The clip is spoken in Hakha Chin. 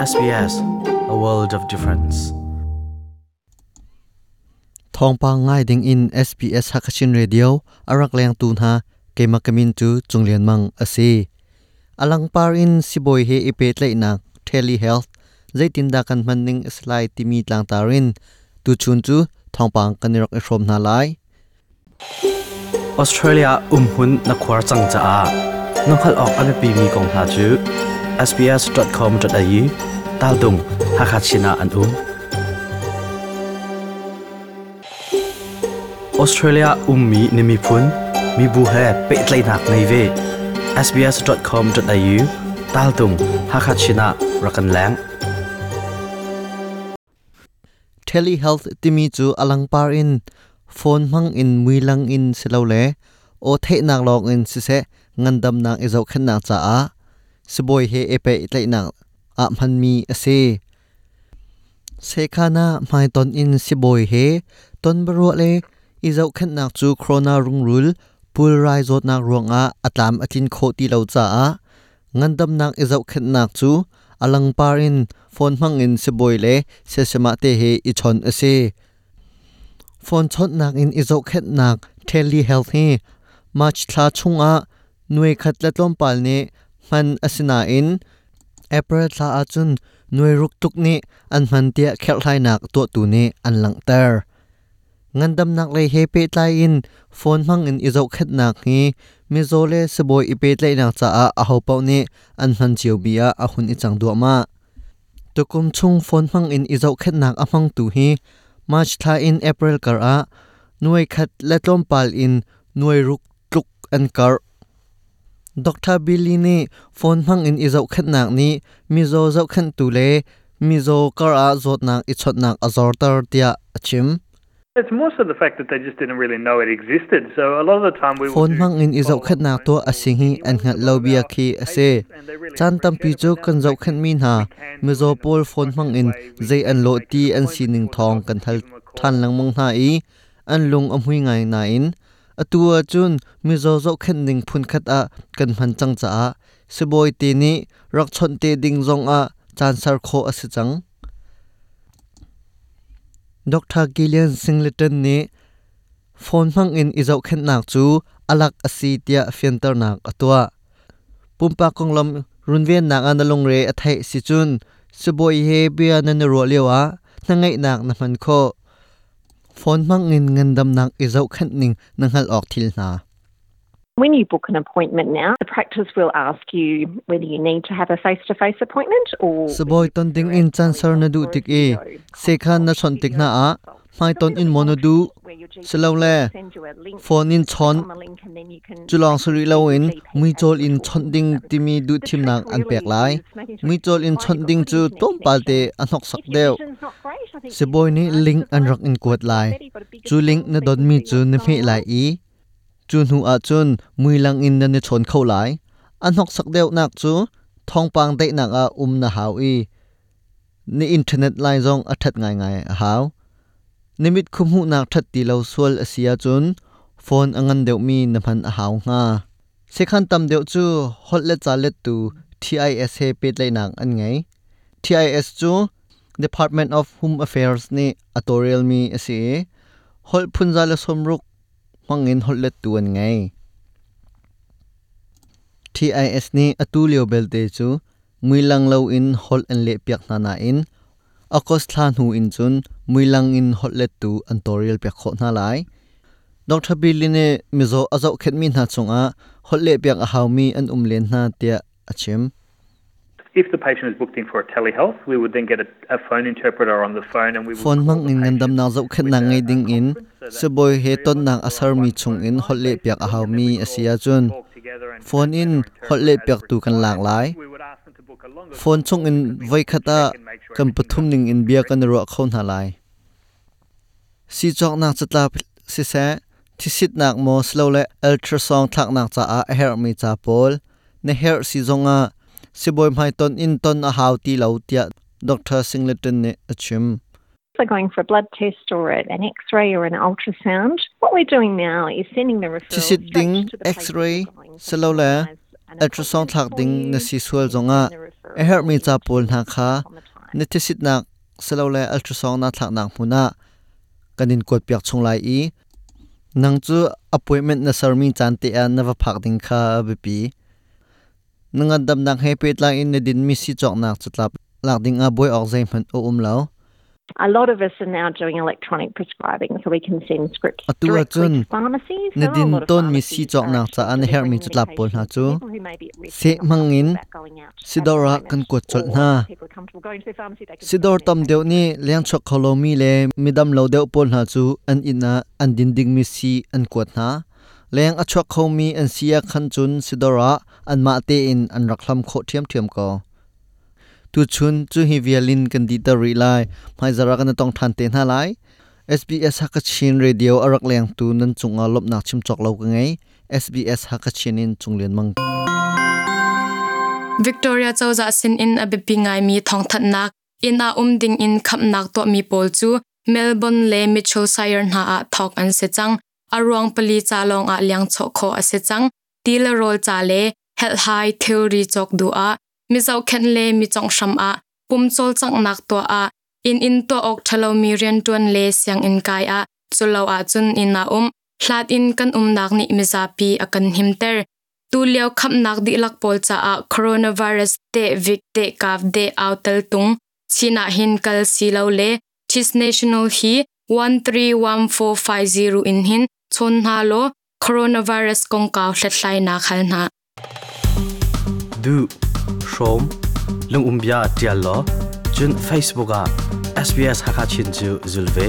SBS, a world of difference. Thawngpang ngai ding in SBS Hakachin Radio arak leng tu hna keima kamin cu Chunglian Mang asi. Alangpar in sibawi he i pehtlaihnak telehealth zeitindah kan hman ning a si lai timi tlangtar in tuchun cu thawngpang kan i rak i hrawm hna lai. Australia umhmun na khuar cang caah na hngalh awk a biapimi kong hna cu sbs.com.au taltung Hakha Chin ah an um. Australia ummi na miphun, mibu he pehtlaihnak ngei ve. sbs.com.au taltung Hakha Chin ah rak kan leng. Telehealth timi cu alangpar in phone hmang in muilang in silole aw theihnak lawng in siseh ngandamnak i zohkhenhnak caah sibawi he i pehtlaihnak ah hmanmi a si. Sekhan ah hmaiton in sibawi he tonbiaruah le i zohkhenhnak cu corona rungrul pulrai zawtnak ruangah a tlam a tlin khawh ti lo caah ngandamnak i zohkhenhnak cu a langpar in phone hmang in sibawi le siasimah te he i chawnh a si. Phone chawnhnak in i zohkhenhnak telehealth hi March thla chungah nuai khat le tlawmpal nih hman a si nain April thla ahcun nuai ruk tluk nih an hman tiah kherhhlainak tuahtu nih an langhter. Ngandamnak lei he pehtlai in phone hmang in i zohkhenhnak hi mizaw le sibawi i pehtlaihnak caah ahopaoh nih an hman cio mi ah a hun i cang duahmah. Tukum chung phone hmang in i zohkhenhnak a hmangtu hi March thla in April kar ah nuai khat le tlawmpal in nuai ruk tluk an karh. Dr. Billy nih phone hmang in i zohkhenhnak nih mizaw zohkhenhtu le mizaw kar ah zawtnak i chawnhnak a zorter tiah a chim. It's more so the fact that they just didn't really know it existed. So a lot of the time we will Phone do hmang in i follow-up zohkhenhnak phone tuah a calls si hi anyway an with hngalh a lo lot of bia our khi a si. patients and they really Caan tampi appreciate it. cu But now kan the fact that zohkhenhmi hna we can do mizaw it in a pawl more phone hmang structured in way, we zei an can lawh make ti an an appointment sining for the thawng doctor kan to hal give them a ṭhan call. lengmang hna i an lung a hmui ngai nain atu ahcun mizaw zohkhenh ning phunkhat ah kan hman cang caah sibawi te nih rak chawnh te ding zongah caan ser khawh a si cang. Dr. Gillian Singleton nih phone hmang in i zohkhenhnak cu a lak a si tiah fianternak a tuah. Pumpak konglam runvennak ah na lungre a theih si cun sibawi he bia nan i ruah lioah hnangeihnak na hman khawh. Phone hmang in ngandamnak i zohkhenh ning na hngalh awk thil hna. When you book an appointment now, the practice will ask you whether you need to have a face-to-face appointment or Sibawi ton ding in caan ser na duh tik i sekhan na chawnh tik hna ah hmaiton in maw na duh silole phone in chawn culawng si rih loin muicawl in chawnh ding timi duhthimnak an pek lai. Muicawl in chawnh ding cu tlawmpal te a hnoksak deuh. Sibawi nih link an rak in kuat lai. Cu link na donmi cu na hmeh lai i cu hnu ahcun muilang in nan i chawn kho lai. A hnoksak deuhnak cu thawngpang daihnak ah um na hau i na internet line zong a ṭhat ngaingai a hau. Na mit khuhmuhnak ṭhat ti lo sual a si ahcun phone a ngan deuhmi na hman a hau hnga. Sekhan tam deuh cu holh le ca lettu TIS he pehtlaihnak an ngei. TIS cu Department of Home Affairs nih a tawlrelmi a si i holh phunza le sawmruk hmangin holh lettu an ngei. TIS nih atu lio belte cu muilang loin holh an lehpiak hna nain August thla hnu in cun muilang in holh lettu an tawlrelpiak khawh hna lai. Dr. Billy nih mizaw a zohkhenhmi hna cungah holh lehpiak a haumi an um len hna tiah a chim. If the patient is booked in for a telehealth, we would then get a phone interpreter on the phone and we would Phone call hmang the in patient ngandamnak with zohkhenhnak ngei a ding in conference. So that's sibawi the he three of us tonnak a who are on sermi one chung phone in line holh lehpiak basically, a and then haumi we a would si all ahcun talk together and phone in translate or holh interpret as lehpiaktu kan lak required. lai. We would ask them to book a longer Phone consult chung in because we want to voikhat ah check and make sure kan everything's pathum ning in absolutely bia correct. kan i ruah kho hna lai. Sicawknak catlap siseh, thisitnak maw silole ultrasound thlaknak caah a herhmi ca pawl na herh si zongah sibawi hmaiton in ton a hau ti lo tiah Dr. Singleton nih a chim. So going for a blood test or an x-ray or an ultrasound. What we're doing now is sending the referral Thisit straight ding, to the place that x-ray, you're going so we silole organise an ultrasound appointment thlak for ding na you si sual and we zongah send the a referral herhmi to ca pawl hna the kha optometrist. Na thisitnak silole ultrasound na thlaknak hmun ah kan in kuat piak chung lai i nang cu appointment na sermi caan te ah na va phak ding kha a biapi. Na ngandamnak he pehtlai in na dinmi sii cawknak catlap lak ding ah buai awk zeihmanh a um lo. A lot of us are now doing electronic prescribing so we can send scripts Atu directly ahcun to pharmacies. na There are a din lot of tawnmi sii pharmacies are cawknak actually caah na herhmi delivering catlap pawl hna medication cu to people who may be at risk seh and not hmang in comfortable about going out at the sidawr ah kan moment kuat colh or hna. people are comfortable going to their pharmacy, they can Sidawr send tam deuh medication nih lengchuak kho lomi le midam lo deuh pawl hna cu an inn ah an din dingmi sii an kuat hna. Leng a chuak khomi an si ah khan cun sidawr ah anmah tein an rak hlam khawh ṭhiamṭhiam ko. Tuchun cu hi vial in kan dihter rih lai. Hmaizarh ah kan i tong ṭhan te hna lai. SBS Hakachin Radio a rak lengtu nan cungah lawmhnak chim cawk lo ka ngei. SBS Hakachin in Cung Lian Mang. Victoria cozah sinin a biapi ngaimi thawngthanhnak inn ah um ding in khamnak tuahmi pawl cu Melbourne le Mitchell Shire hna ah thawk an si cang. A ruang pali ca lawng ah liang chawh khawh a si cang. Ti le rawl ca le helhhai thilri cawk duh ah mi zohkhenh le mi conghhram ah pum cawlcanghnak tuah ah inn in tuah awk ṭhalomi rianṭuan le sianginn kai ah culo ahcun inn ah um hlat in kan umnak nih mizapi a kan himter. Tulio khamnak dihlak pawl caah coronavirus te vik te kav de au tel tung chin ah hin kal si lo le Chis National hi 131450 in hin chawn hna law coronavirus kongkau hlathlainak hal hna. Du, hrawm, lungumbia tial law, cun Facebook ah SBS Hakachin cu zul ve.